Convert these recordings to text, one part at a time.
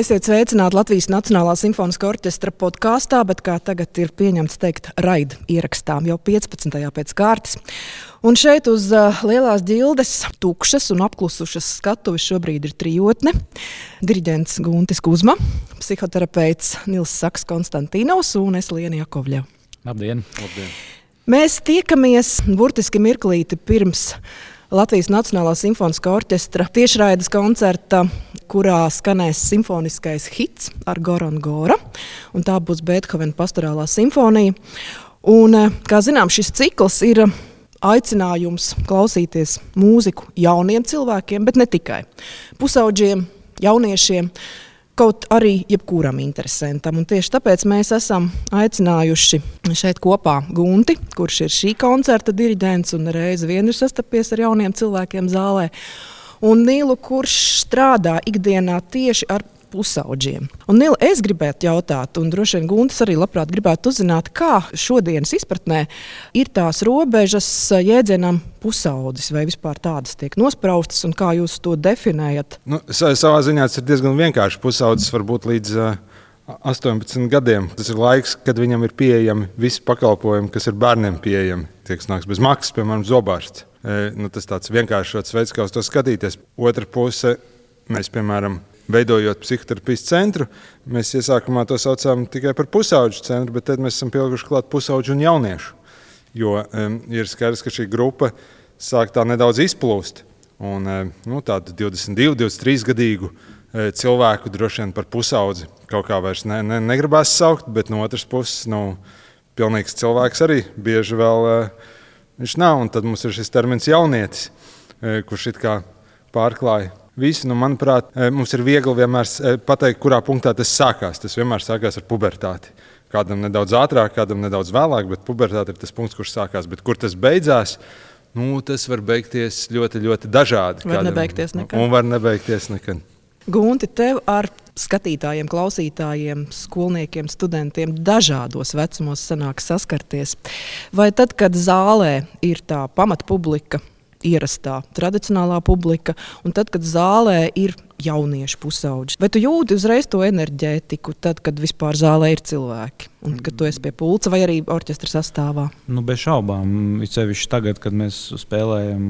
Esiet sveicināti Latvijas Nacionālā simfoniskā orķestra podkāstā, bet kā tagad ir pieņemts teikt raida ierakstā, jau 15. pēc kārtas. Un šeit uz lielās ģildes, tukšas un apklusušas skatuves šobrīd ir trijotne. Diriģents Guntis Kuzma, psihoterapeits Nils Saks Konstantīnovs un es Liena Jakovļeva. Labdien! Labdien! Mēs tiekamies burtiski mirklīti pirms Latvijas Nacionālā simfoniskā orķestra tiešraides koncerta, kurā skanēs simfoniskais hits ar Goran Gora, un tā būs Beethovena pastorālā simfonija. Un, kā zinām, šis cikls ir aicinājums klausīties mūziku jauniem cilvēkiem, bet ne tikai. Pusaudžiem, jauniešiem, kaut arī jebkuram interesantam. Un tieši tāpēc mēs esam aicinājuši šeit kopā Gunti, kurš ir šī koncerta diriģents un reizi vien ir sastapies ar jauniem cilvēkiem zālē, un Nilu, kurš strādā ikdienā tieši ar pusaudžiem. Un Nila, es gribētu jautāt, un droši vien Guntis arī labprāt gribētu uzzināt, kā šodienas izpratnē ir tās robežas jēdzienam pusaudzis, vai vispār tādas tiek nospraustas, un kā jūs to definējat? Savā ziņā tas ir diezgan vienkārši. Pusaudzis var būt līdz 18 gadiem. Tas ir laiks, kad viņam ir pieejami visi pakalpojumi, kas ir bērniem pieejami. Tie, kas nāks bez maksas, piemēram, zobārsts. Tas tāds vienkāršots veids, kā uz to skatīties. Otra puse, mēs, piemēram, veidojot psihoterapijas centru, mēs iesākumā to saucām tikai par pusauģu centru, bet tad mēs esam pielikuši klāt pusauģu un jauniešu. Jo ir skaidrs, ka šī grupa sāk tā nedaudz izplūst. Un tādu 22, 23 gadīgu cilvēku droši vien par pusaudzi kaut kā vairs negribās saukt, bet no otras puses, pilnīgs cilvēks arī bieži vēl viņš nav. Un tad mums ir šis termins jaunietis, kurš it kā pārklāja visu. Manuprāt, mums ir viegli vienmēr pateikt, kurā punktā tas sākās. Tas vienmēr sākās ar pubertāti. Kādam nedaudz ātrāk, kādam nedaudz vēlāk, bet pubertāte ir tas punkts, kurš sākās. Bet kur tas beidzās, tas var beigties ļoti, ļoti dažādi. Var nebeigties nekad. Un var nebeigties nekad. Gunti, tev ar skatītājiem, klausītājiem, skolniekiem, studentiem dažādos vecumos sanāk saskarties. Vai tad, kad zālē ir tā pamatpublika, ierastā tradicionālā publika, un tad, kad zālē ir jaunieši pusauģi. Vai tu jūti uzreiz to enerģētiku, tad, kad vispār zālē ir cilvēki, un kad tu esi pie pulca vai arī orķestra sastāvā? Bez šaubām, sevišķi tagad, kad mēs spēlējam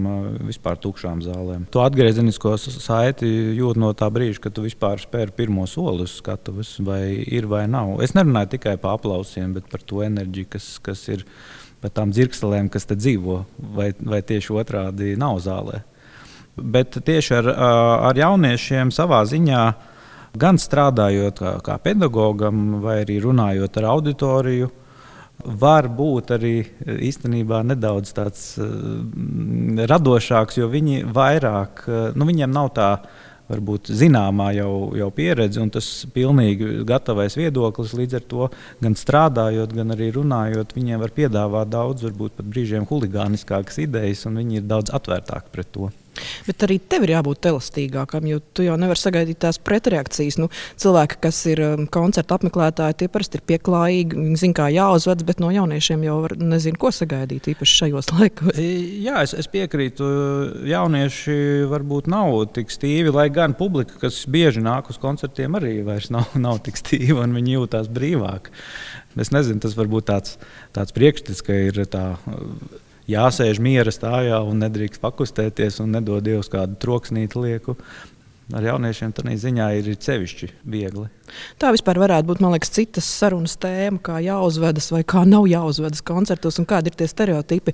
vispār tukšām zālēm. To atgriezenisko saiti jūt no tā brīža, kad tu vispār spēri pirmo soli uz skatuves, vai ir vai nav. Es nerunāju tikai par aplausiem, bet par to enerģiju, kas ir par tām dzirkstelēm, kas te dzīvo, vai tieši otrādi nav zālē. Bet tieši ar jauniešiem savā ziņā, gan strādājot kā pedagogam, vai arī runājot ar auditoriju, var būt arī īstenībā nedaudz tāds radošāks, jo viņi vairāk, viņiem nav tā varbūt zināmā jau pieredze, un tas pilnīgi gatavais viedoklis. Līdz ar to gan strādājot, gan arī runājot, viņiem var piedāvāt daudz, varbūt pat brīžiem huligāniskākas idejas, un viņi ir daudz atvērtāki pret to. Bet arī tev ir jābūt elastīgākam, jo tu jau nevari sagaidīt tās pretreakcijas. Cilvēki, kas ir koncerta apmeklētāji, tie parasti ir pieklājīgi, viņi zina, kā jāuzvedas, bet no jauniešiem jau nezinu, ko sagaidīt īpaši šajos laikos. Jā, es piekrītu. Jaunieši varbūt nav tik stīvi, lai gan publika, kas bieži nāk uz koncertiem, arī vairs nav tik stīva un viņi jūtās brīvāk. Es nezinu, tas varbūt tāds priekšstats, ka ir tā jāsēž miera stājā un nedrīkst pakustēties un nedod Dievs kādu troksnīti lieku. Ar jauniešiem tādā ziņā ir sevišķi viegli. Tā vispār varētu būt, man liekas, citas sarunas tēma, kā jāuzvedas vai kā nav jāuzvedas koncertos un kādi ir tie stereotipi.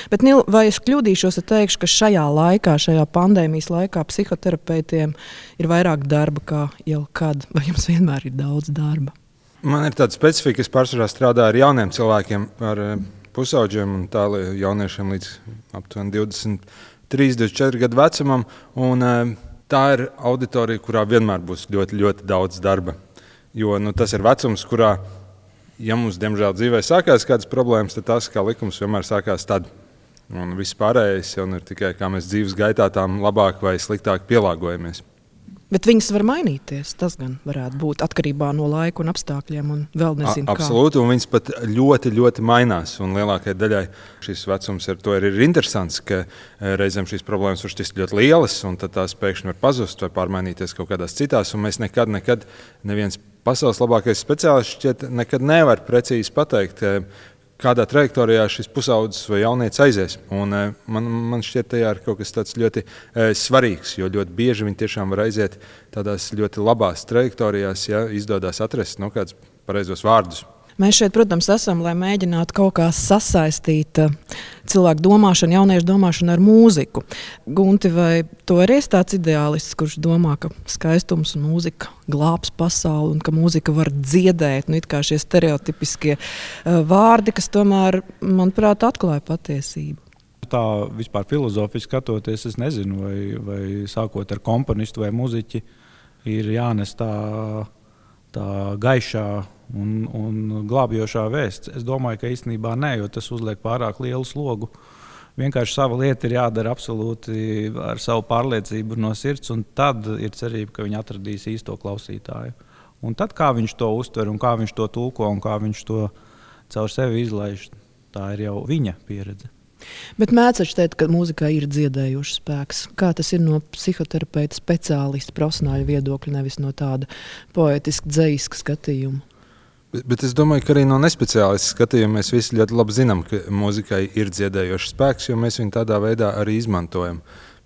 Bet, Nil, vai es kļūdīšos, ja teikšu, ka šajā laikā, šajā pandēmijas laikā psihoterapeitiem ir vairāk darba kā jebkad, vai jums vienmēr ir daudz darba? Man ir tāda specifika, es pārsvarā strādāju ar jauniem cilvēkiem, ar pusauģiem un tālāk jauniešiem līdz aptuveni 23, 24 gadu vecumam. Un tā ir auditorija, kurā vienmēr būs ļoti, ļoti daudz darba. Jo tas ir vecums, kurā, ja mums diemžēl dzīvē sākās kādas problēmas, tad tas, kā likums, vienmēr sākās tad. Un viss pārējais jau ir tikai, kā mēs dzīves gaitā tām labāk vai sliktāk pielāgojamies. Bet viņas var mainīties. Tas gan varētu būt atkarībā no laika un apstākļiem. Un vēl nezinu, absolūti, un viņas pat ļoti, ļoti mainās. Un lielākajai daļai šis vecums ir interesants, ka reizēm šīs problēmas var šķist ļoti lielas, un tad tās pēkšņi var pazust vai pārmainīties kaut kādās citās. Un mēs nekad neviens pasaules labākais speciālists šķiet nekad nevar precīzi pateikt, kādā trajektorijā šis pusaudzis vai jaunietis aizies. Un, man šķiet, tajā ir kaut kas tāds ļoti svarīgs, jo ļoti bieži viņi tiešām var aiziet tādās ļoti labās trajektorijās, ja izdodas atrast kādus pareizos vārdus. Mēs šeit, protams, esam, lai mēģinātu kaut kā sasaistīt cilvēku domāšanu, jauniešu domāšanu ar mūziku. Gunti, vai tu arī esi tāds ideālists, kurš domā, ka skaistums un mūzika glābs pasauli un ka mūzika var dziedēt? It kā šie stereotipiskie vārdi, kas tomēr, manuprāt, atklāja patiesību. Tā vispār filozofiski skatoties, es nezinu, vai sākot ar komponistu vai muziķi ir jānes tā gaišā un glābjošā vēsts. Es domāju, ka īstenībā nē, jo tas uzliek pārāk lielu slogu. Vienkārši sava lieta ir jādara absolūti ar savu pārliecību no sirds, un tad ir cerība, ka viņi atradīs īsto klausītāju. Un tad, kā viņš to uztver, un kā viņš to tulko, un kā viņš to caur sevi izlaiž, tā ir jau viņa pieredze. Bet mēdz teikt, ka mūzikā ir dziedējošs spēks. Kā tas ir no psihoterapeita speciālista profesionāļa viedokļa, nevis no tāda poetiska, dzejiska skatījuma? Bet es domāju, ka arī no nespeciālista skatījuma mēs visi ļoti labi zinām, ka mūzikai ir dziedējošs spēks, jo mēs viņu tādā veidā arī izmantojam.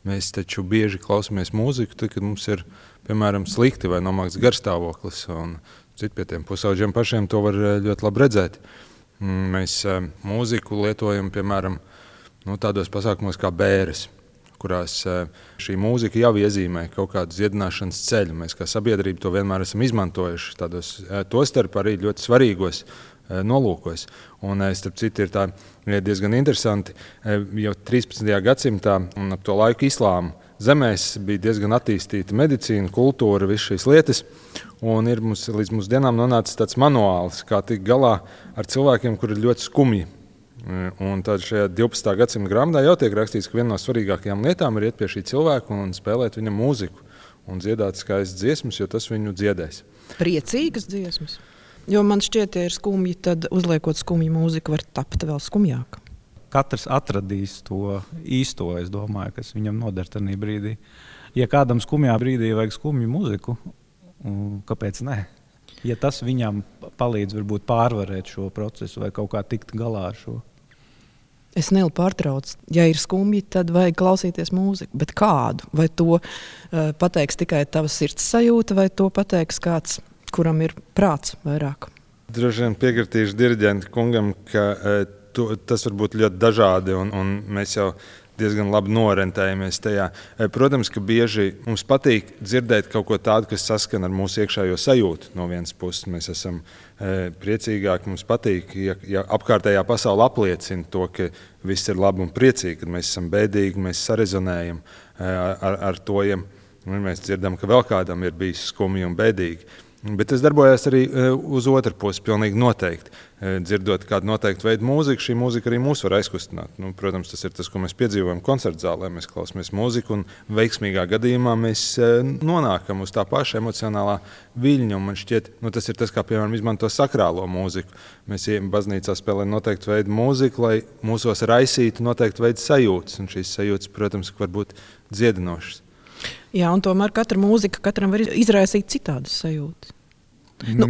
Mēs taču bieži klausāmies mūziku, tad, kad mums ir, piemēram, slikti vai nomākts garstāvoklis. Pie tiem pusaudžiem pašiem to var ļoti labi redzēt. Mēs mūziku lietojam, piemēram, tādos pasākumos kā bēres, kurās šī mūzika jau iezīmē kaut kādu dziedināšanas ceļu. Mēs kā sabiedrība to vienmēr esam izmantojuši tādos, tostarp arī ļoti svarīgos nolūkos. Un, starp citu, ir diezgan interesanti, jau 13. gadsimtā un ap to laiku islāma zemēs bija diezgan attīstīta medicīna, kultūra, visas šīs lietas. Un ir līdz mūsu dienām nonācis tāds manuāls, kā tikt galā ar cilvēkiem, kuri ir ļoti skumji. Un tad šajā 12. gadsimta grāmatā jau tiek rakstīts, ka viena no svarīgākajām lietām ir iet pie šī cilvēka un spēlēt viņam mūziku un dziedāt skaistas dziesmas, jo tas viņu dziedēs. Priecīgas dziesmas. Jo man šķiet, ja ir skumji, tad uzliekot skumju mūziku var tapt vēl skumjāk. Katrs atradīs to īsto, es domāju, kas viņam noder tajā brīdī. Ja kādam skumjā brīdī vajag skumju mūziku, kāpēc ne? Ja tas viņam palīdz varbūt pārvarēt šo procesu vai kaut kā tikt galā ar šo. Es nelielu pārtraucu. Ja ir skumji, tad vajag klausīties mūziku. Bet kādu? Vai to pateiks tikai tavas sirds sajūta, vai to pateiks kāds, kuram ir prāts vairāk? Droši vien piekritīšu diriģenta kungam, ka tas var būt ļoti dažādi, un mēs jau diezgan labi norentējamies tajā. Protams, ka bieži mums patīk dzirdēt kaut ko tādu, kas saskan ar mūsu iekšējo sajūtu. No vienas puses mēs esam priecīgāki, mums patīk, ja apkārtējā pasaule apliecina to, ka viss ir labi un priecīgi, kad mēs esam bēdīgi, mēs sarezonējam ar to, ja mēs dzirdam, ka vēl kādam ir bijis skumji un bēdīgi. Bet tas darbojās arī uz otru pusi, pilnīgi noteikti. Dzirdot kādu noteiktu veidu mūziku, šī mūzika arī mūs var aizkustināt. Protams, tas ir tas, ko mēs piedzīvojam koncertu zālē. Mēs klausāmies mūziku un veiksmīgā gadījumā mēs nonākam uz tā paša emocionālā viļņa. Un man šķiet, tas ir tas, kā piemēram izmanto sakrālo mūziku. Mēs ejam baznīcā spēlējam noteiktu veidu mūziku, lai mūsos raisītu noteiktu veidu sajūtas. Un šīs sajūtas, protams, var būt dziedinošas. Jā, un tomēr katra mūzika katram var izraisīt citādas sajūtas.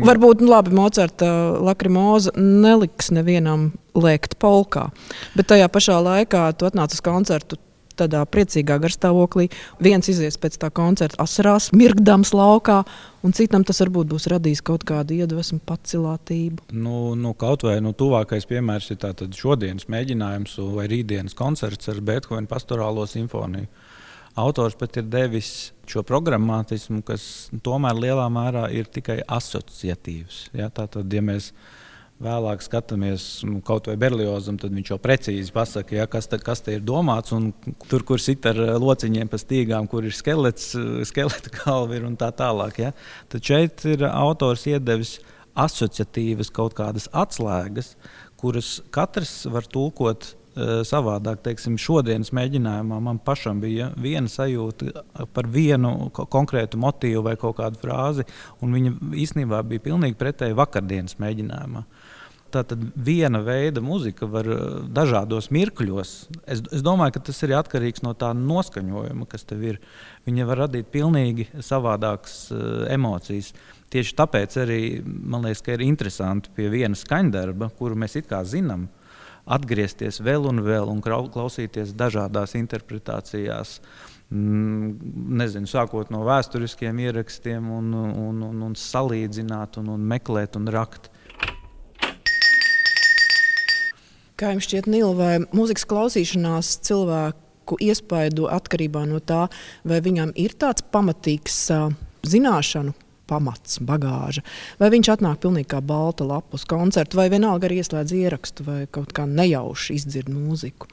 Varbūt labi, Mocarta Lakrimoza neliks nevienam lēkt polkā, bet tajā pašā laikā tu atnāc uz koncertu tādā priecīgā garstāvoklī. Viens izies pēc tā koncerta asarās, mirgdams laukā, un citam tas varbūt būs radījis kaut kādu iedvesmu, pacilātību. Kaut vai tuvākais piemērs ir tātad šodienas mēģinājums vai rītdienas koncerts ar Beethovena pastorālo simfoniju. Autors pat ir devis šo programmatismu, kas tomēr lielā mērā ir tikai asociatīvs. Ja? Tātad, ja mēs vēlāk skatāmies kaut vai Berliozam, tad viņš jau precīzi pasaka, ja, kas te ir domāts, un tur, kur sit ar lociņiem pa stīgām, kur ir skeleta galva ir un tā tālāk. Ja? Tad šeit ir autors iedevis asociatīvas kaut kādas atslēgas, kuras katrs var tulkot savādāk. Teiksim, šodienas mēģinājumā man pašam bija viena sajūta par vienu konkrētu motīvu vai kaut kādu frāzi, un viņa īstenībā bija pilnīgi pretēji vakardienas mēģinājumā. Tātad viena veida muzika var dažādos mirkļos. Es domāju, ka tas ir atkarīgs no tā noskaņojuma, kas tev ir. Viņa var radīt pilnīgi savādākas emocijas. Tieši tāpēc arī man liekas, ka ir interesanti pie viena skaņdarba, kuru mēs it kā zinām, atgriezties vēl un klausīties dažādās interpretācijās. Nezinu, sākot no vēsturiskiem ierakstiem un salīdzināt un meklēt un rakt. Kā jums šķiet, Nīla, vai mūzikas klausīšanās cilvēku iespaido atkarībā no tā, vai viņam ir tāds pamatīgs zināšanu pamats, bagāža, vai viņš atnāk pilnīgi kā balta lapa uz koncertu, vai vienalga arī ieslēdz ierakstu, vai kaut kā nejauši izdzird mūziku?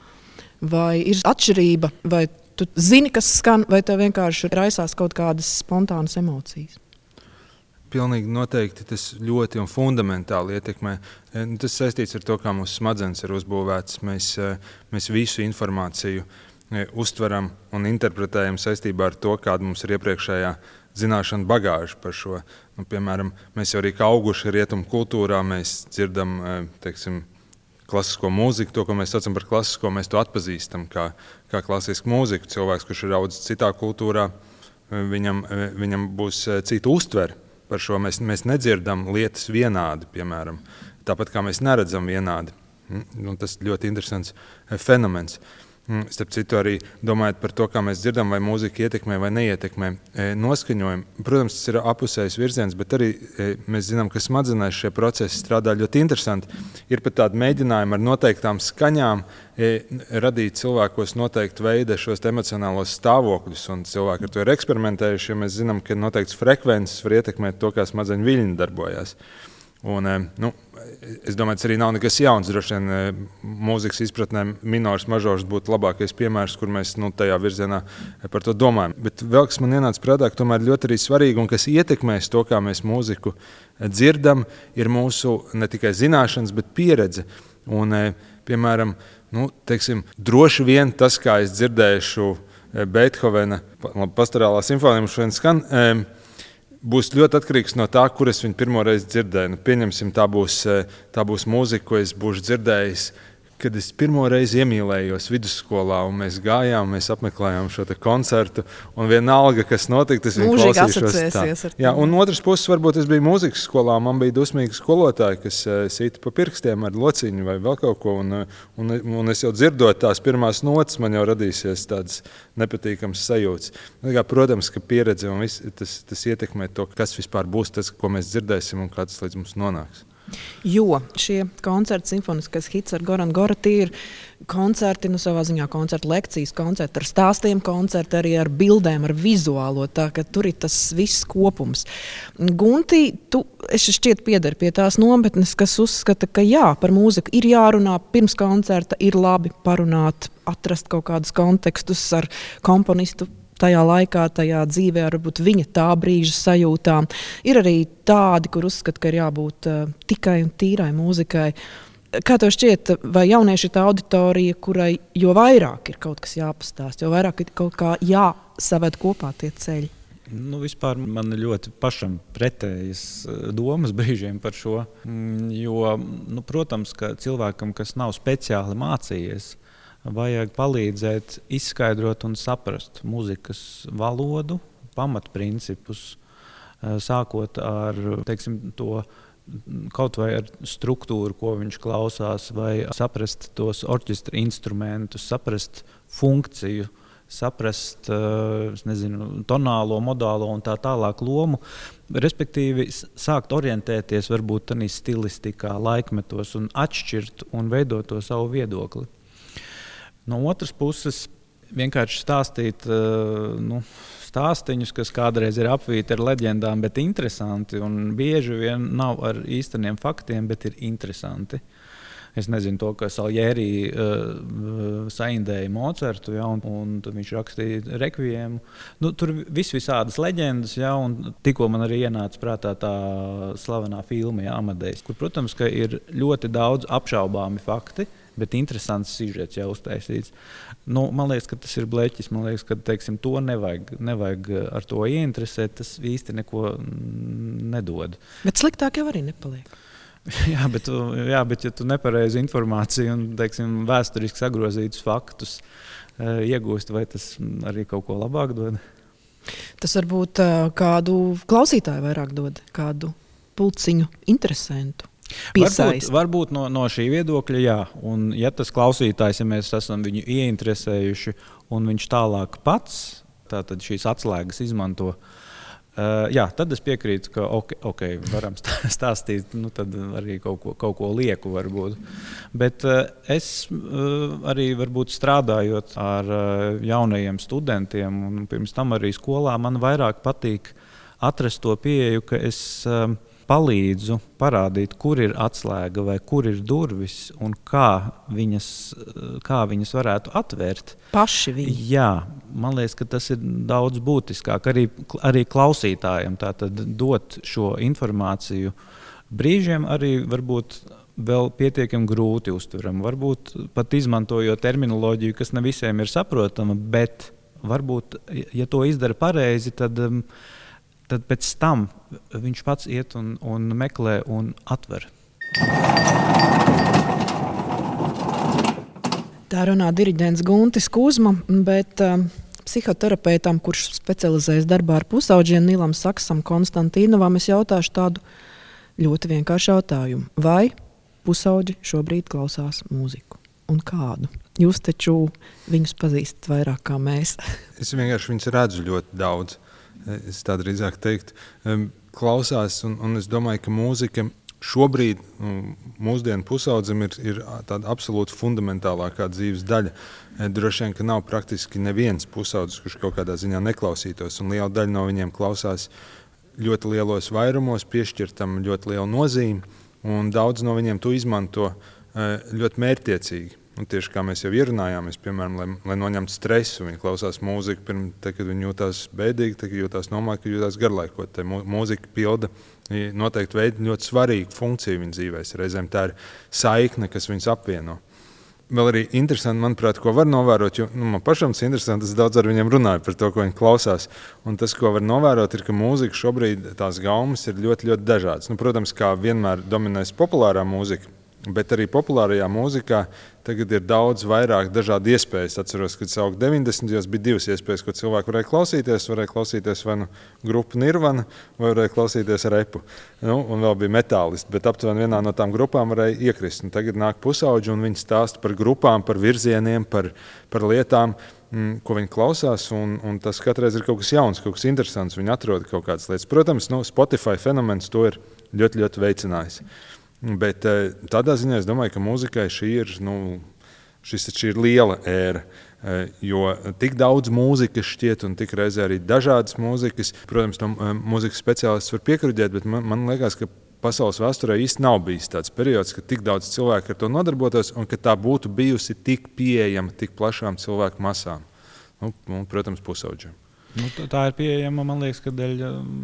Vai ir atšķirība, vai tu zini, kas skan, vai tev vienkārši raisās kaut kādas spontānas emocijas? Pilnīgi noteikti tas ļoti un fundamentāli ietekmē. Tas saistīts ar to, kā mūsu smadzenes ir uzbūvētas. Mēs visu informāciju uztveram un interpretējam saistībā ar to, kāda mums ir iepriekšējā zināšana bagāža par šo. Piemēram, mēs jau arī kā auguši rietumu kultūrā, mēs dzirdam, klasisko mūziku, to, ko mēs saucam par klasisko, mēs to atpazīstam kā klasisku mūziku. Cilvēks, kurš ir audzis citā kultūrā, viņam būs cita uztvere. Par šo mēs nedzirdam lietas vienādi, piemēram, tāpat kā mēs neredzam vienādi. Tas ļoti interesants fenomens. Starp citu, arī domājot par to, kā mēs dzirdam, vai mūzika ietekmē vai neietekmē noskaņojumu. Protams, tas ir apusējs virziens, bet arī mēs zinām, ka smadzenēs šie procesi strādā ļoti interesanti. Ir pat tādi mēģinājumi ar noteiktām skaņām radīt cilvēkos noteiktu veidu šos emocionālos stāvokļus, un cilvēki ar to ir eksperimentējuši, jo mēs zinām, ka noteikts frekvences var ietekmēt to, kā smadzeņu viļņi darbojās. Un, es domāju, tas arī nav nekas jauns. Droši vien mūzikas izpratnē minors, mažors būtu labākais piemērs, kur mēs tajā virzienā par to domājam. Bet vēl, kas man ienāca prātā, ka tomēr ļoti arī svarīgi un kas ietekmēs to, kā mēs mūziku dzirdam, ir mūsu ne tikai zināšanas, bet pieredze. Un, piemēram, droši vien tas, kā es dzirdēšu Beethovena pastorālā simfonija, mums šodien skan, būs ļoti atkarīgs no tā, kur es viņu pirmo reizi dzirdēju. Pieņemsim, tā būs mūzika, ko es būšu dzirdējis, kad es pirmo reizi iemīlējos vidusskolā, un mēs gājām, mēs apmeklējām šo koncertu, un vienalga, kas notika, tas viņa klausīšos tā. Jā, un otras puses, varbūt es biju mūzikas skolā, man bija dusmīgi skolotāji, kas sīta pa pirkstiem ar lociņu vai vēl kaut ko, un es jau dzirdot tās pirmās notas, man jau radīsies tādas nepatīkams sajūtas. Protams, ka pieredze un viss, tas ietekmē to, kas vispār būs tas, ko mēs dzirdēsim un kā tas līdz mums nonāks. Jo šie koncerti, simfoniskais hits ar Goran Gora, tie ir koncerti, savā ziņā koncerti, lekcijas, koncerti ar stāstiem, koncerti arī ar bildēm, ar vizuālo, tā ka tur ir tas viss kopums. Gunti, es šķiet piedari pie tās nometnes, kas uzskata, ka jā, par mūziku ir jārunā pirms koncerta, ir labi parunāt, atrast kaut kādus kontekstus ar komponistu tajā laikā, tajā dzīvē, varbūt viņa tā brīža sajūtām. Ir arī tādi, kur uzskata, ka ir jābūt tikai un tīrai mūzikai. Kā tev šķiet, vai jaunieši ir tā auditorija, kurai jo vairāk ir kaut kas jāpastāst, jo vairāk ir kaut kā jāsaved kopā tie ceļi? Vispār man ļoti pašam pretējas domas brīžiem par šo, jo, protams, ka cilvēkam, kas nav speciāli mācījies, vajag palīdzēt izskaidrot un saprast mūzikas valodu, pamatprincipus, sākot ar, to kaut vai ar struktūru, ko viņš klausās, vai saprast tos orķestra instrumentus, saprast funkciju, saprast, tonālo, modālo un tā tālāk lomu, respektīvi sākt orientēties varbūt tādā stilistikā, laikmetos un atšķirt un veidot to savu viedokli. No otras puses, vienkārši stāstīt stāstiņus, kas kādreiz ir apvīti ar leģendām, bet interesanti, un bieži vien nav ar īsteniem faktiem, bet ir interesanti. Es nezinu to, ka Salieri saindēja Mocartu, un viņš rakstīja rekviemu. Tur visādas leģendas, un tikko man arī ienāca prātā tā slavenā filma Amadejs, kur, protams, ka ir ļoti daudz apšaubāmi fakti, bet interesants sižets jau uztaisīts. Man liekas, ka tas ir bleķis. Man liekas, ka teiksim, to nevajag ar to ieinteresēt. Tas īsti neko nedod. Bet sliktāk jau arī nepaliek. Jā, bet ja tu nepareizi informāciju un teiksim, vēsturiski sagrozītus faktus iegūst, vai tas arī kaut ko labāk dod? Tas varbūt kādu klausītāju vairāk dod, kādu pulciņu interesantu. Varbūt no šī viedokļa, jā. Un ja tas klausītājs, ja mēs esam viņu ieinteresējuši un viņš tālāk pats tātad šīs atslēgas izmanto, tad es piekrītu, ka varam stāstīt, tad arī kaut ko lieku varbūt. Bet es arī varbūt strādājot ar jaunajiem studentiem un pirms tam arī skolā, man vairāk patīk atrast to pieeju, ka es palīdzu parādīt, kur ir atslēga vai kur ir durvis un kā viņas varētu atvērt. Paši viņi. Jā, man liekas, ka tas ir daudz būtiskāk arī klausītājiem tātad dot šo informāciju. Brīžiem arī varbūt vēl pietiekami grūti uztveram. Varbūt pat izmantojot terminoloģiju, kas ne visiem ir saprotama, bet varbūt, ja to izdara pareizi, tad pēc tam viņš pats iet un meklē un atver. Tā runā diriģents Guntis Kuzma, bet psihoterapeitam, kurš specializējas darbā ar pusaudžiem, Nilam Saksam, Konstantīnovam, es jautāšu tādu ļoti vienkāršu jautājumu. Vai pusauģi šobrīd klausās mūziku? Un kādu? Jūs taču viņus pazīstat vairāk kā mēs. Es vienkārši viņus redzu ļoti daudz. Es tā drīzāk teiktu, klausās, un es domāju, ka mūzika šobrīd mūsdienu pusaudzim ir tāda absolūti fundamentālākā dzīves daļa. Droši vien, ka nav praktiski neviens pusaudzis, kurš kaut kādā ziņā neklausītos, un liela daļa no viņiem klausās ļoti lielos vairumos, piešķirtam ļoti lielu nozīmi, un daudz no viņiem to izmanto ļoti mērķtiecīgi. Un tieši kā mēs jau ierunājāmies, piemēram, lai noņemtu stresu, viņi klausās mūziku, kad viņi jūtās bēdīgi, tad jūtās nomākt, kad jūtās garlaikot. Tā mūzika pilda noteikti veidu ļoti svarīgu funkciju viņa dzīvēs. Reizēm tā ir saikne, kas viņus apvieno. Vēl arī interesanti, manuprāt, ko var novērot, jo man pašam tas interesanti, es daudz ar viņiem runāju par to, ko viņi klausās. Un tas, ko var novērot, ir, ka mūzika šobrīd tās gaumas ir ļoti, ļoti dažādas. Protams, kā vienmēr dominēs populārā mūzika, bet arī populārajā mūzikā tagad ir daudz vairāk dažādu iespējas. Atceros, kad saukt 90. bija divas iespējas, ko cilvēki varēja klausīties vai grupu Nirvana, vai varēja klausīties repu. Un vēl bija metālisti, bet aptuveni vienā no tām grupām varēja iekrist. Un tagad nāk pusauģi un viņi stāsta par grupām, par virzieniem, par lietām, ko viņi klausās, un tas katreiz ir kaut kas jauns, kaut kas interesants. Viņi atrod kaut kādas lietas. Protams, Spotify fenomens to ir ļoti, ļoti veicinājis. Bet tādā ziņā es domāju, ka mūzikai šī ir liela ēra, jo tik daudz mūzikas šķiet un tik reizē arī dažādas mūzikas. Protams, mūzikas speciālists var piekruģēt, bet man liekas, ka pasaules vēsturē īsti nav bijis tāds periods, ka tik daudz cilvēku ar to nodarbotos un ka tā būtu bijusi tik pieejama tik plašām cilvēku masām. Protams, pusauģiem. Tā ir pieejama, man liekas, ka dēļ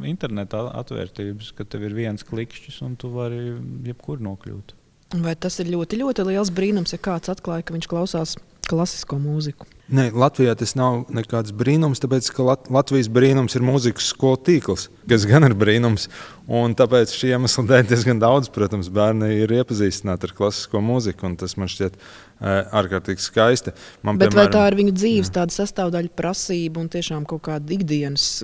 interneta atvērtības, ka tev ir viens klikšķis un tu vari jebkur nokļūt. Vai tas ir ļoti, ļoti liels brīnums, ja kāds atklāja, ka viņš klausās klasisko mūziku? Nē, Latvijā tas nav nekāds brīnums, tāpēc, ka Latvijas brīnums ir mūzikas skolu tīkls, kas gan ir brīnums. Un tāpēc šī iemesla dēļ diezgan daudz, protams, bērni ir iepazīstināti ar klasisko mūziku, un tas man šķiet ārkārtīgi skaisti. Bet vai tā ir viņu dzīves tāda sastāvdaļa prasība un tiešām kaut kāda ikdienas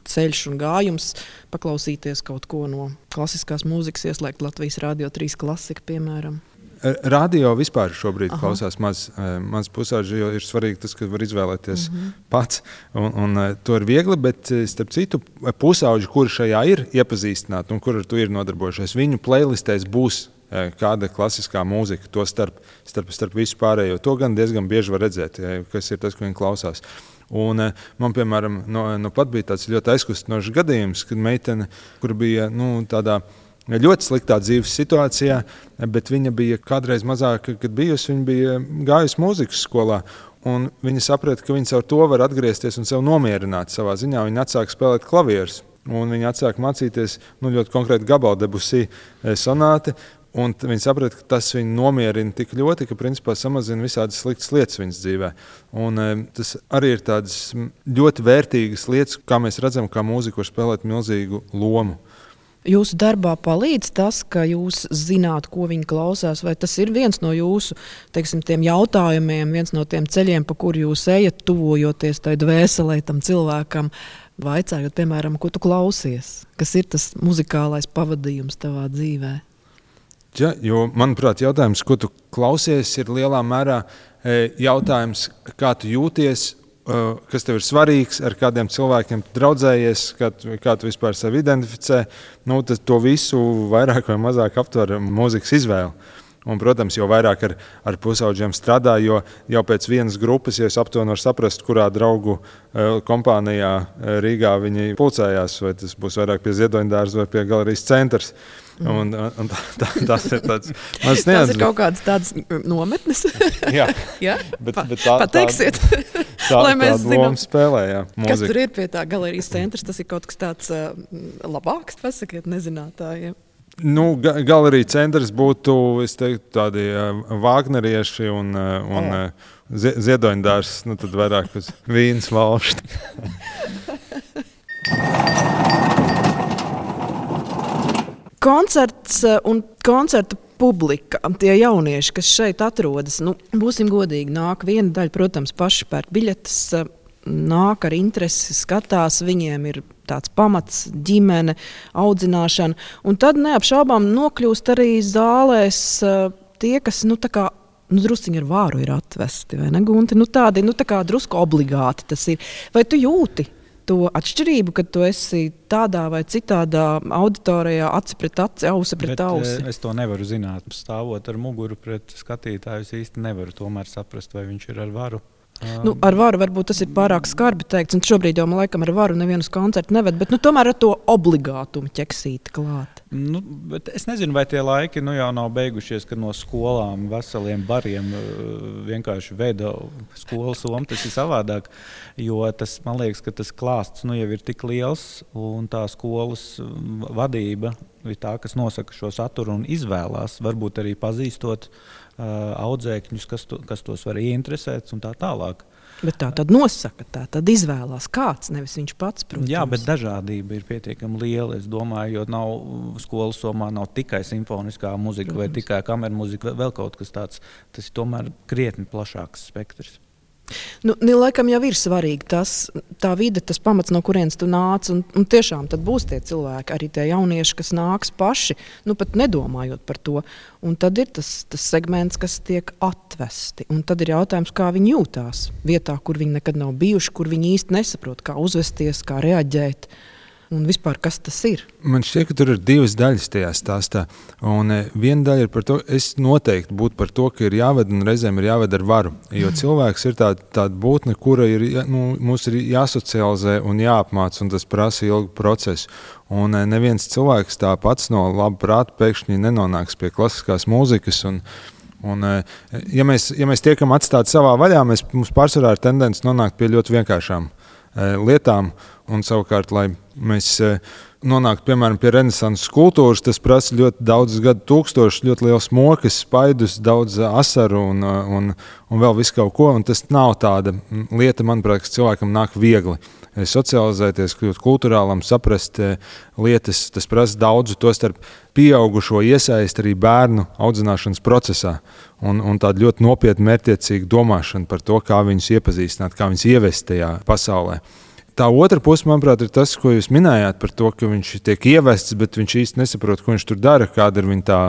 ceļš un gājums paklausīties kaut ko no klasiskās mūzikas, ieslēgt Latvijas Radio 3 klasika, piemēram? Radio vispār šobrīd klausās maz pusauģi, jo ir svarīgi tas, ka var izvēlēties pats. Un to ir viegli, bet starp citu pusauģi, kuri šajā ir iepazīstināti un kuri ar to ir nodarbojušies, viņu playlistēs būs kāda klasiskā mūzika, to starp visu pārējo. To gan diezgan bieži var redzēt, kas ir tas, ko viņi klausās. Un man, piemēram, pat bija tāds ļoti aizkustinošs gadījums, kad meitene, kur bija tādā ļoti sliktā dzīves situācijā, bet viņa bija kādreiz mazāka, kad bijusi, viņa bija gājusi mūzikas skolā. Un viņa saprata, ka viņa caur to var atgriezties un sev nomierināt savā ziņā. Viņa atsāka spēlēt klavierus, un viņa atsāka mācīties ļoti konkrēti gabalu Debussy sonāti. Un viņi saprata, ka tas viņu nomierina tik ļoti, ka principā samazina visādas sliktas lietas viņas dzīvē. Un tas arī ir tādas ļoti vērtīgas lietas, kā mēs redzam, kā mūzika var spēlēt milzīgu lomu. Jūsu darbā palīdz tas, ka jūs zināt, ko viņi klausās, vai tas ir viens no jūsu, teiksim, tiem jautājumiem, viens no tiem ceļiem, pa kuru jūs ejat, tuvojoties tai dvēselē tam cilvēkam, vaicājot, piemēram, ko tu klausies? Kas ir tas muzikālais pavadījums tavā dzīvē? Ja, jo, manuprāt, jautājums, ko tu klausies, ir lielā mērā jautājums, kā tu jūties, kas tev ir svarīgs, ar kādiem cilvēkiem tu draudzējies, kā tu vispār sevi identificē. Nu, to visu vairāk vai mazāk aptver mūzikas izvēle. Un, protams, jo vairāk ar pusaudžiem strādā, jo jau pēc vienas grupas, ja es aptuveni varu saprast, kurā draugu kompānijā Rīgā viņi pulcējās, vai tas būs vairāk pie Ziedoņdārza vai pie galerijas centrs. Un tas ir tāds mans neatzīmes. Tas ir kaut kādas tādas nometnes. Jā, ja? bet pateiksiet, lai mēs zinām, kas tur ir pie tā galerijas centrs. Tas ir kaut kas tāds labāks, pasakiet nezinātājiem. Nu, galerija centrs būtu, es teiktu, tādi vāgnerieši un Ziedoņdārs, nu tad vairāk uz vīnas valšti. Koncerts un koncerta publika, tie jaunieši, kas šeit atrodas, nu, būsim godīgi, nāk viena daļa, protams, paši pērk biļetes, nāk ar interesi, skatās, viņiem ir tāds pamats, ģimene, audzināšana, un tad neapšaubām nokļūst arī zālēs tie, kas, drusciņi ar vāru ir atvesti, vai ne, Gunti? Tādi, tā kā drusku obligāti tas ir. Vai tu jūti to atšķirību, kad tu esi tādā vai citādā auditorijā, aci pret aci, ausi pret ausi? Es to nevaru zināt. Stāvot ar muguru pret skatītāju, es īsti nevaru tomēr saprast, vai viņš ir ar varu. Ar varu varbūt tas ir pārāk skarbi teikts, un šobrīd jau man laikam ar varu nevienus koncertu neved, bet tomēr ar to obligātumu ķeksīti klāt. Bet es nezinu, vai tie laiki jau nav beigušies, kad no skolām veseliem bariem vienkārši veda skolas somu. Tas ir savādāk, jo tas, man liekas, ka tas klāsts jau ir tik liels, un tā skolas vadība ir tā, kas nosaka šo saturu un izvēlās, varbūt arī pazīstot audzēkņus, kas tos var ieinteresēt un tā tālāk. Bet tā tad nosaka, tā tad izvēlās kāds, nevis viņš pats, protams. Jā, bet dažādība ir pietiekami liela, es domāju, jo skolas somā nav tikai simfoniskā muzika, protams, vai tikai kamermuzika, vēl kaut kas tāds. Tas ir tomēr krietni plašāks spektrs. Laikam jau ir svarīgi tā vide, tas pamats, no kurienes tu nāc, un tiešām tad būs tie cilvēki, arī tie jaunieši, kas nāks paši, pat nedomājot par to. Un tad ir tas segments, kas tiek atvesti, un tad ir jautājums, kā viņi jūtās vietā, kur viņi nekad nav bijuši, kur viņi īsti nesaprot, kā uzvesties, kā reaģēt. Un vispār, kas tas ir? Man šķiet, ka tur ir divas daļas tajā stāstā. Un viena daļa ir par to, es noteikti būtu par to, ka ir jāved un reizēm ir jāved ar varu. Jo cilvēks ir tāda būtne, kura mums ir jāsocializē un jāapmāc, un tas prasa ilgu procesu. Un neviens cilvēks tā pats no laba prāta pēkšņi nenonāks pie klasiskās mūzikas. Ja mēs tiekam atstāti savā vaļā, mums pārsvarā ir tendence nonākt pie ļoti vienkāršām lietām, un savukārt, lai mēs nonāktu, piemēram, pie renesanses kultūras, tas prasa ļoti daudz gadu tūkstošus, ļoti liels mokas, spaidus, daudz asaru un vēl visu kaut ko, un tas nav tāda lieta, manuprāt, kas cilvēkam nāk viegli. Socializēties, kļūt kulturālam, saprast lietas, tas prasa daudzu, tostarp pieaugušo iesaist arī bērnu audzināšanas procesā, un tāda ļoti nopietna mērķtiecīga domāšana par to, kā viņus iepazīstināt, kā viņus ievest tajā pasaulē. Tā otra puse, manuprāt, ir tas, ko jūs minējāt par to, ka viņš tiek ievests, bet viņš īsti nesaprot, ko viņš tur dara, kāda ir viņa tā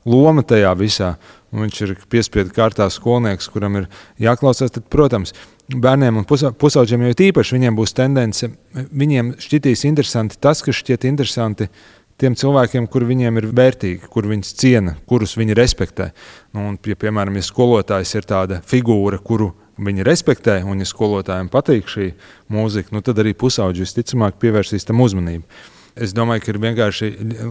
loma tajā visā. Un viņš ir piespiedu kārtā skolnieks, kuram ir jāklausās. Tad, protams, bērniem un pusauģiem jau īpaši viņiem būs tendence, viņiem šķitīs interesanti tas, kas šķiet interesanti tiem cilvēkiem, kur viņiem ir vērtīgi, kur viņus ciena, kurus viņi respektē. Un, piemēram, ja skolotājs ir tāda figūra, kuru viņi respektē, un ja skolotājiem patīk šī mūzika, tad arī pusauģi visticamāk pievērsīs tam uzmanību. Es domāju, ka ir vienkārši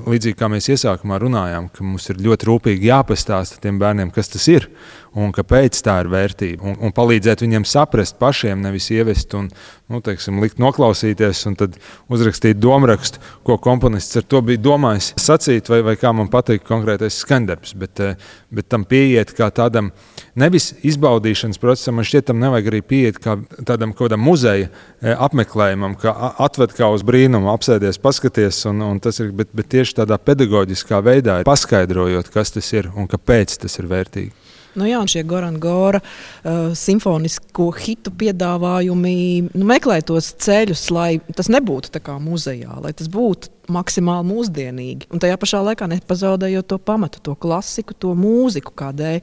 līdzīgi kā mēs iesākumā runājām, ka mums ir ļoti rūpīgi jāpastāsta tiem bērniem, kas tas ir un kāpēc tā ir vērtība. Un palīdzēt viņiem saprast pašiem, nevis ievest un likt noklausīties un tad uzrakstīt domrakstu, ko komponists ar to bija domājis sacīt, vai kā man patīk konkrētais skaņdarbs. Bet tam pieiet kā tādam nevis izbaudīšanas procesam, man šķiet, tam nevajag arī pieiet kā tādam kaut kādam muzeja apmeklējumam, kā atved kā uz brīnumu, apsēdies, paskaties, un tas ir, bet tieši tādā pedagoģiskā veidā paskaidrojot, kas tas ir un kāpēc tas ir vērtīgi. Jā, un šie Goran Gora simfonisko hitu piedāvājumi meklē tos ceļus, lai tas nebūtu tā kā muzejā, lai tas būtu maksimāli mūsdienīgi. Un tajā pašā laikā nepazaudējot to pamatu, to klasiku, to mūziku, kādēļ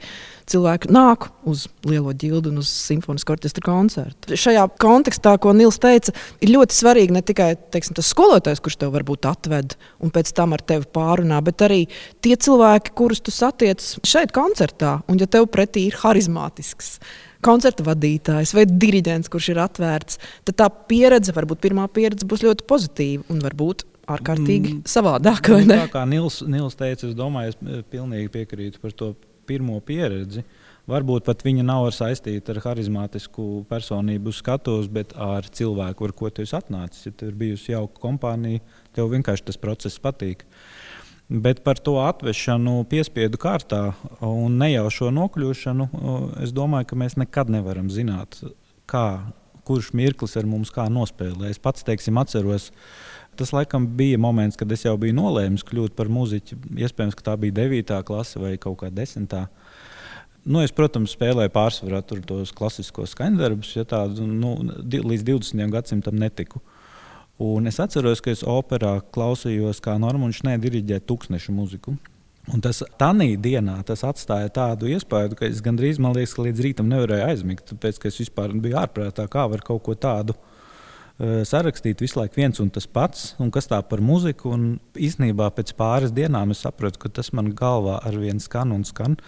cilvēki nāk uz Lielo ģildu un uz simfonisko orķestra koncertu. Šajā kontekstā, ko Nils teica, ir ļoti svarīgi ne tikai tas skolotājs, kurš tev varbūt atved un pēc tam ar tevi pārunā, bet arī tie cilvēki, kurus tu satiec šeit koncertā. Un ja tev pretī ir harizmātisks koncerta vadītājs vai diriģents, kurš ir atvērts, tad tā pieredze, varbūt pirmā pieredze būs ļoti pozitīva un varbūt ārkārtīgi savādāk. Tā kā Nils teica, es domāju, es pilnīgi piekrītu par to pirmo pieredzi. Varbūt pat viņa nav saistīta ar harizmātisku personību skatuves, bet ar cilvēku, ar ko tu esi atnācis. Ja tev ir bijusi jauka kompānija, tev vienkārši tas process patīk. Bet par to atvešanu piespiedu kārtā un nejaušo nokļūšanu, es domāju, ka mēs nekad nevaram zināt, kurš mirklis ar mums kā nospēlē. Es pats, atceros, tas laikam bija moments, kad es jau biju nolēmis kļūt par muziķi. Iespējams, ka tā bija 9. klase vai kaut kā 10. Es, protams, spēlēju pārsvarā tos klasiskos skaņdarbus, ja tādu līdz 20. gadsimtam netiku. Un es atceros, ka es operā klausījos, kā Normunds Šnē diriģē Tūkstneša muziku. Un tas tanī dienā tas atstāja tādu iespēju, ka es gandrīz, man liekas, ka līdz rītam nevarēju aizmigt, tāpēc, ka es vispār biju ārprātā, kā var kaut ko tādu sarakstīt visu laiku viens un tas pats, un kas tā par muziku. Un īstenībā pēc pāris dienām es sapratu, ka tas man galvā arvien skan un skan.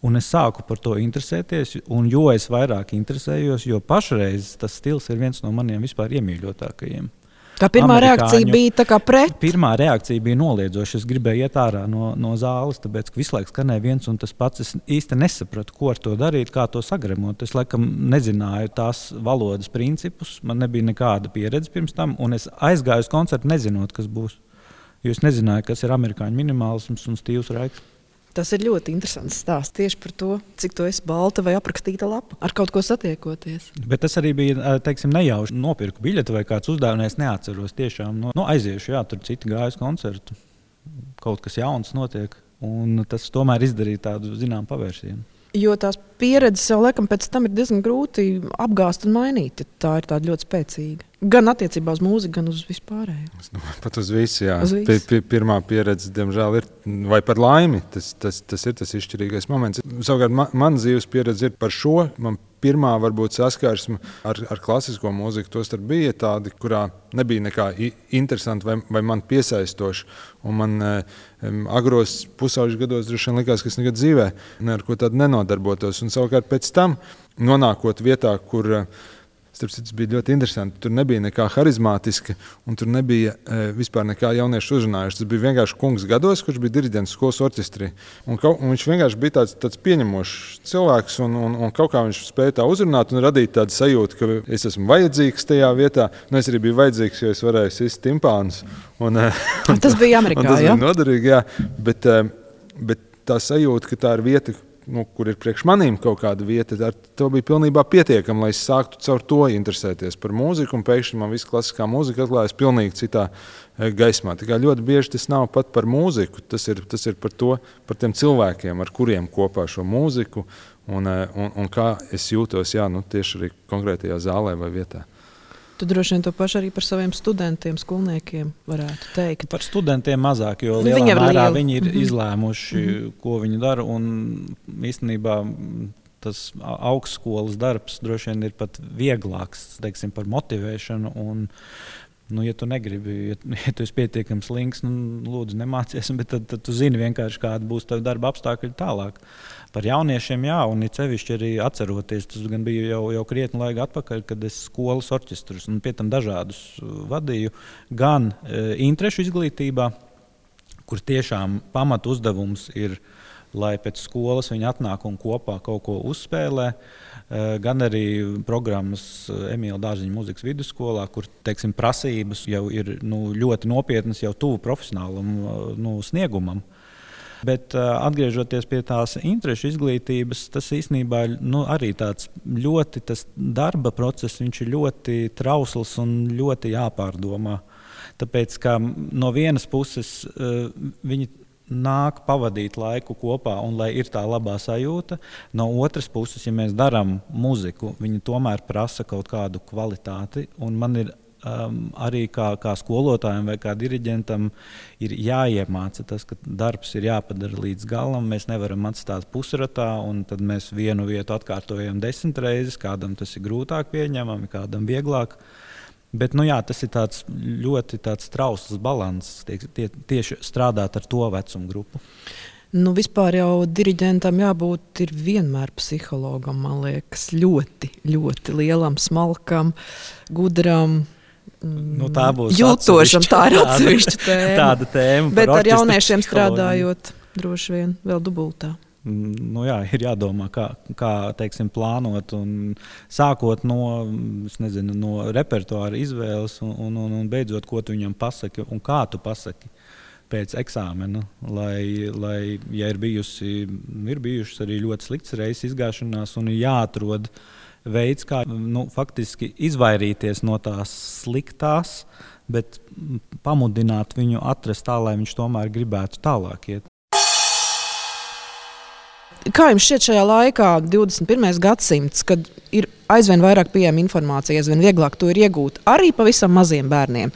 Un es sāku par to interesēties, un jo es vairāk interesējos, jo pašreiz tas stils ir viens no maniem vispār iemīļotākajiem. Tā pirmā reakcija bija tā kā pret? Pirmā reakcija bija noliedzoša. Es gribēju iet ārā no zāles, tāpēc, ka visu laiku skanēja viens un tas pats. Es īsti nesapratu, ko ar to darīt, kā to sagremot. Es laikam nezināju tās valodas principus, man nebija nekāda pieredze pirms tam, un es aizgāju uz koncertu nezinot, kas būs. Jo es nezināju, kas ir amerikāņu minimālisms un Stīvs Raiks. Tas ir ļoti interesants stāsts tieši par to, cik tu esi balta vai aprakstīta lapa, ar kaut ko satiekoties. Bet tas arī bija, nejauši nopirku biļeti vai kāds uzdevums, es neatceros tiešām. Aiziešu, jā, tur citi gājas koncertu, kaut kas jauns notiek, un tas tomēr izdarīja tādu, zinām, pavērsienu. Jo tās pieredzes jau laikam pēc tam ir diezgan grūti apgāzt un mainīt, ja tā ir tāda ļoti spēcīga. Gan attiecībā uz mūziku, gan uz vispārējo. Es domāju, pat uz visu, jā. Pirmā pieredze, diemžēl, ir, vai par laimi, tas ir tas izšķirīgais moments. Savukārt, man dzīves pieredze ir par šo. Man pirmā varbūt saskarsme ar klasisko mūziku tostarp bija tādi, kurā nebija nekā interesanti vai man piesaistoši. Un man agros pusauģu gados droši vien likās, ka es nekad dzīvē ar ko tādu nenodarbotos. Un savukārt pēc tam, nonākot vietā, kur starp citu, bija ļoti interesanti. Tur nebija nekā harizmātiska, un tur nebija vispār nekā jauniešu uzrunājuši. Tas bija vienkārši kungs gados, kurš bija diriģents skolas orķestrī. Un viņš vienkārši bija tāds pieņemošs cilvēks, un kaut kā viņš spēja tā uzrunāt un radīt tādu sajūtu, ka es esmu vajadzīgs tajā vietā. Es arī biju vajadzīgs, jo es varēju sist timpānus. Tas bija Amerikā, tas bija noderīgi, jā. Bet tā sajūta, ka tā ir vieta, kur ir priekš manīm kaut kāda vieta, to bija pilnībā pietiekama, lai es sāktu caur to interesēties par mūziku, un pēkšņi man viss klasiskā mūzika atklājas pilnīgi citā gaismā. Tā kā ļoti bieži tas nav pat par mūziku, tas ir par tiem cilvēkiem, ar kuriem kopā šo mūziku, un kā es jūtos, tieši arī konkrētajā zālē vai vietā. Tu droši vien to pašu arī par saviem studentiem, skolniekiem varētu teikt. Par studentiem mazāk, jo lielā mērā viņi ir izlēmuši, ko viņi dara. Un īstenībā tas augstskolas darbs droši vien ir pat vieglāks, teiksim, par motivēšanu. Un Ja tu negribi, ja tu esi pietiekami slinks, lūdzu, nemācies, bet tad tu zini vienkārši, kāda būs tava darba apstākļi tālāk. Par jauniešiem, jā, un it sevišķi arī atceroties, tas gan bija jau krietni laika atpakaļ, kad es skolas orķestrus un pie tam dažādus vadīju, gan interešu izglītībā, kur tiešām pamatu uzdevums ir, lai pēc skolas viņi atnāk un kopā kaut ko uzspēlē, gan arī programmas Emīla Dārziņa mūzikas vidusskolā, kur, teiksim, prasības jau ir ļoti nopietnas, jau tuvu profesionālam sniegumam. Bet atgriežoties pie tās interešu izglītības, tas īstenībā arī tāds ļoti, tas darba process, viņš ir ļoti trausls un ļoti jāpārdomā. Tāpēc, ka no vienas puses viņi nāk pavadīt laiku kopā un lai ir tā labā sajūta. No otras puses, ja mēs darām muziku, viņi tomēr prasa kaut kādu kvalitāti. Un man ir arī kā skolotājiem vai kā diriģentam ir jāiemāca tas, ka darbs ir jāpadara līdz galam. Mēs nevaram atstāt pusratā un tad mēs vienu vietu atkārtojam 10 reizes. Kādam tas ir grūtāk pieņemami, kādam vieglāk. Bet tas ir ļoti trausls balanss tieši strādāt ar to vecumu grupu. Vispār jau diriģentam jābūt vienmēr psihologam, man liekas, ļoti, ļoti lielam, smalkam, gudram, jūtošam. Tā ir atsevišķa tēma. Tāda tēma. Bet ar jauniešiem strādājot droši vien vēl dubultā. Ir jādomā, kā teiksim, plānot, un sākot no repertuāra izvēles un beidzot, ko tu viņam pasaki un kā tu pasaki pēc eksāmena. Lai ja ir bijušas arī ļoti sliktas reizes izgāšanās un ir jāatrod veids, kā faktiski izvairīties no tās sliktās, bet pamudināt viņu atrast tā, lai viņš tomēr gribētu tālāk iet. Kā jums šķiet šajā laikā, 21. gadsimts, kad ir aizvien vairāk pieejama informācija, aizvien vieglāk to ir iegūt arī pavisam maziem bērniem,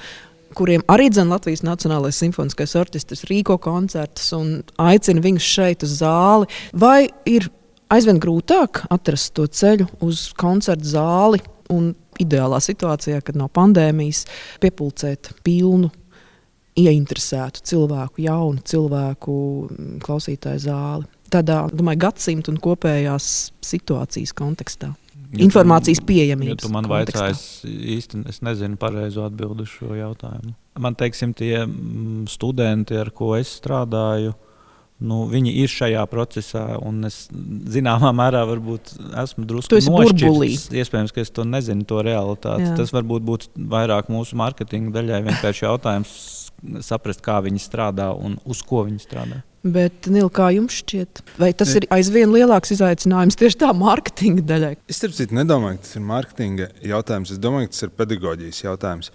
kuriem arī Latvijas Nacionālais simfoniskais orķestris rīko koncertus un aicina viņus šeit uz zāli? Vai ir aizvien grūtāk atrast to ceļu uz koncertu zāli un ideālā situācijā, kad nav pandēmijas, piepulcēt pilnu, ieinteresētu cilvēku, jaunu cilvēku klausītāju zāli? Tādā, gadsimta un kopējās situācijas kontekstā. Informācijas pieejamības kontekstā. Ja tu man vaicāji, īsti es nezinu pareizo atbildi uz šo jautājumu. Man, teiksim, tie studenti, ar ko es strādāju, viņi ir šajā procesā, un es zināmā mērā varbūt esmu drusku nošķirts. Iespējams, ka es to nezinu, to realitāti. Jā. Tas varbūt būtu vairāk mūsu mārketinga daļai vienkārši jautājums saprast, kā viņi strādā un uz ko viņi strādā. Bet, Nil, kā jums šķiet? Vai tas ir aizvien lielāks izaicinājums tieši tā mārketinga daļai? Es nedomāju, ka tas ir mārketinga jautājums. Es domāju, ka tas ir pedagoģijas jautājums.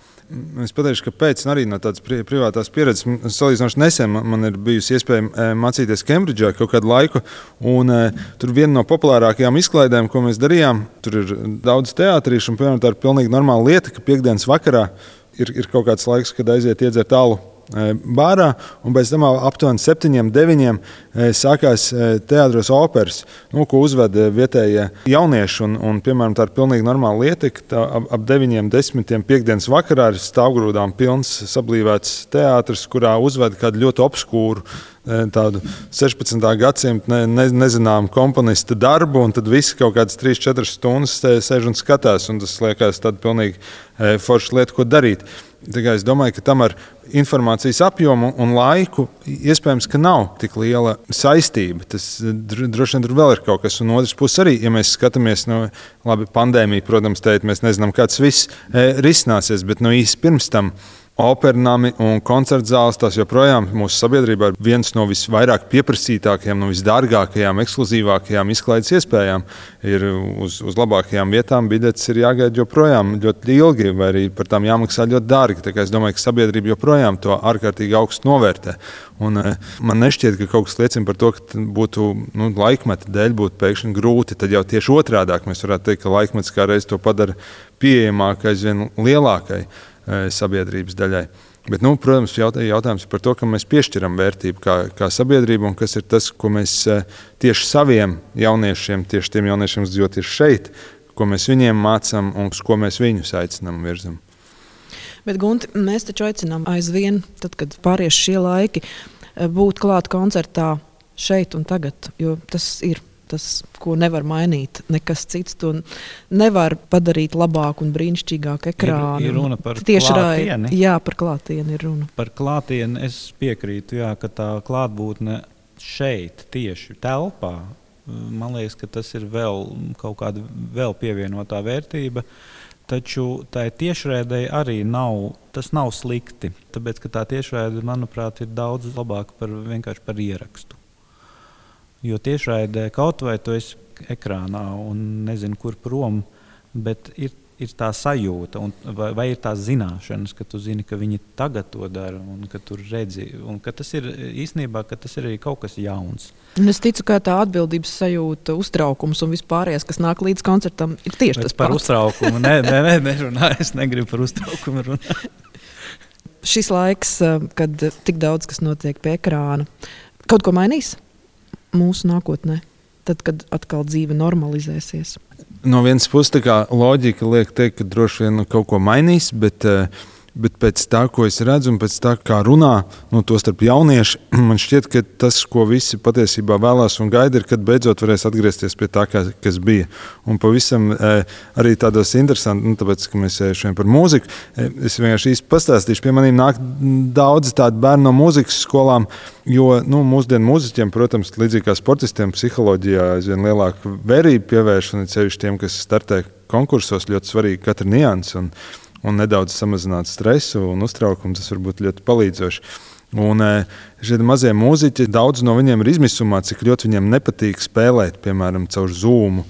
Es pateikšu, kāpēc arī no tādas privātās pieredzes. Salīdzinoši nesen man ir bijusi iespēja mācīties Kembridžā kaut kādu laiku. Un, tur viena no populārākajām izklaidēm, ko mēs darījām, tur ir daudz teātrīšu. Un, piemēram, tā ir pilnīgi normāla lieta, ka piekdienas vakarā ir kaut kāds laiks, kad aiziet iedzert alu bārā, un pēc tam aptuveni 7-9 sākās teātros operas, ko uzveda vietējie jaunieši. Un, piemēram, tā ir pilnīgi normāla lieta, ka ap 9-10 piekdienas vakarā ir stāvgrūdām pilns sablīvēts teātris, kurā uzveda kādu ļoti obskūru tādu 16. gadsimta nezināmu komponista darbu, un tad visi kaut kādas 3-4 stundas sēž un skatās, un tas liekas tāda pilnīgi forša lieta, ko darīt. Es domāju, ka tam ar informācijas apjomu un laiku iespējams, ka nav tik liela saistība. Tas droši vien tur vēl ir kaut kas. Un otrs puses arī, ja mēs skatāmies, pandēmija, protams, mēs nezinām, kā tas viss risināsies, bet īsi pirms tam opernami un koncertzāles, tās joprojām mūsu sabiedrībā ir viens no visvairāk pieprasītākajām, no visdārgākajām, ekskluzīvākajām izklaides iespējām. Ir uz labākajām vietām biļetes ir jāgaida joprojām ļoti ilgi, vai arī par tām jāmaksā ļoti dārgi. Tā kā es domāju, ka sabiedrība joprojām to ārkārtīgi augstu novērtē. Un man nešķiet, ka kaut kas liecina par to, ka būtu laikmeta dēļ būtu pēkšņi grūti. Tad jau tieši otrādāk mēs varētu teikt, ka laikmets kā reiz to padara pieejamāk aizvien lielākai sabiedrības daļai. Bet, protams, jautājums ir par to, ka mēs piešķiram vērtību kā sabiedrība, un kas ir tas, ko mēs tieši saviem jauniešiem, tieši tiem jauniešiem, kas tieši šeit, ko mēs viņiem mācām un uz ko mēs viņus aicinām virzam. Bet, Gunti, mēs taču aicinām aizvien, tad, kad pāries šie laiki, būt klāt koncertā šeit un tagad, jo tas ir tas, ko nevar mainīt. Nekas cits to nevar padarīt labāk un brīnišķīgāk ekrānu. Ir runa par klātieni. Jā, par klātieni ir runa. Par klātieni es piekrītu, jā, ka tā klātbūtne šeit, tieši telpā, man liekas, ka tas ir vēl kaut kāda vēl pievienotā vērtība. Taču tai tiešraidei arī tas nav slikti, tāpēc, ka tā tiešraide, manuprāt, ir daudz labāka vienkārši par ierakstu. Jo tiešraidē kaut vai tu esi ekrānā un nezinu, kur prom, bet ir tā sajūta vai ir tās zināšanas, ka tu zini, ka viņi tagad to dara un ka tu redzi. Un ka tas ir īstenībā, ka tas ir arī kaut kas jauns. Un es ticu, ka tā atbildības sajūta, uztraukums un vispārējais, kas nāk līdz koncertam, ir tieši tas pats. Par uztraukumu nerunāju, es negribu par uztraukumu runāt. Šis laiks, kad tik daudz kas notiek pie ekrāna, kaut ko mainīs mūsu nākotnē, tad, kad atkal dzīve normalizēsies? No vienas puses, tā kā loģika liek teikt, ka droši vien kaut ko mainīs, bet pēc tā, ko es redzu un pēc tā, kā runā, to starp jaunieši, man šķiet, ka tas, ko visi patiesībā vēlās un gaida, ir, kad beidzot varēs atgriezties pie tā, kas bija. Un pavisam arī tādos interesanti, tāpēc, ka mēs šodien par mūziku, es vienkārši īsti pastāstīšu, pie maniem nāk daudzi tādi bērni no mūzikas skolām, jo mūsdienu mūziķiem, protams, līdzīgi kā sportistiem, psiholoģijā aizvien lielāku vērību pievērš, un sevišķi tiem, kas startē konkursos, ļoti svarīgi katra nianse un nedaudz samazināt stresu un uztraukumu, tas var būt ļoti palīdzoši. Un šie mazie mūziķi, daudz no viņiem ir izmisumā, cik ļoti viņiem nepatīk spēlēt, piemēram, caur Zoom.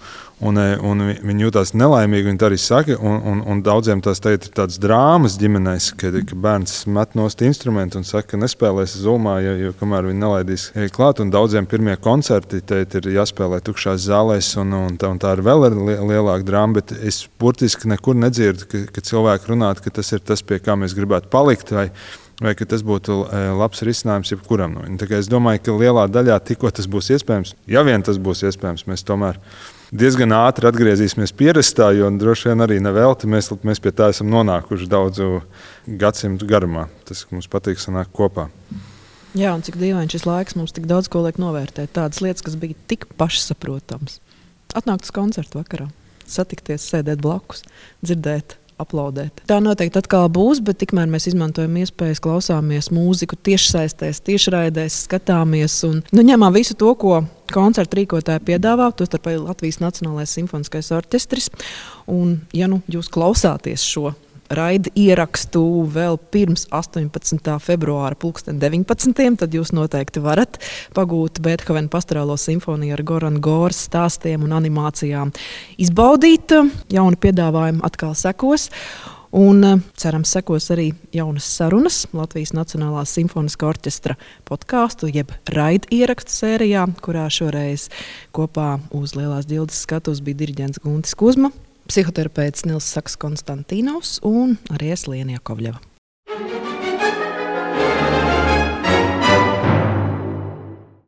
Un viņi jūtās nelaimīgi, viņi tā arī saka, un daudziem tās tagad ir tādas drāmas ģimenēs, ka bērns met nost instrumentu un saka, ka nespēlēs Zoomā, jo kamēr viņi nelaidīs klāt, un daudziem pirmie koncerti ir jāspēlē tukšās zālēs, un tā ir vēl lielāka drāma, bet es burtiski nekur nedzirdu, ka cilvēki runātu, ka tas ir tas, pie kā mēs gribētu palikt, vai ka tas būtu labs risinājums jebkuram. Tā kā es domāju, ka lielā daļā tikko tas būs iespējams, ja vien tas būs iespējams, mēs tomēr diezgan ātri atgriezīsimies pierastā, jo droši vien arī nevelti mēs pie tā esam nonākuši daudzu gadsimtu garumā. Tas, ka mums patīk sanākt kopā. Jā, un cik dīvaini šis laiks mums tik daudz ko liek novērtēt. Tādas lietas, kas bija tik pašsaprotams. Atnākt uz koncertu vakarā, satikties, sēdēt blakus, dzirdēt, aplaudēt. Tā noteikti atkal būs, bet tikmēr mēs izmantojam iespējas, klausāmies mūziku tiešsaistēs, tiešraidēs, skatāmies un ņemam visu to, ko koncertu rīkotāji piedāvā, tostarp arī Latvijas Nacionālais simfoniskais orķestris. Un, ja jūs klausāties šo raida ierakstu vēl pirms 18. februāra 19. tad jūs noteikti varat pagūt Beethovena pastorālo simfoniju ar Gorana Goras stāstiem un animācijām. Izbaudīt, jauni piedāvājumi atkal sekos. Un cerams, sekos arī jaunas sarunas Latvijas Nacionālā simfoniskā orķestra podkāstu, jeb raida ierakstu sērijā, kurā šoreiz kopā uz Lielās ģildes skatuves bija diriģents Guntis Kuzma, psihoterapeits Nils Saks Konstantīnovs un arī es Liena Jakovļeva.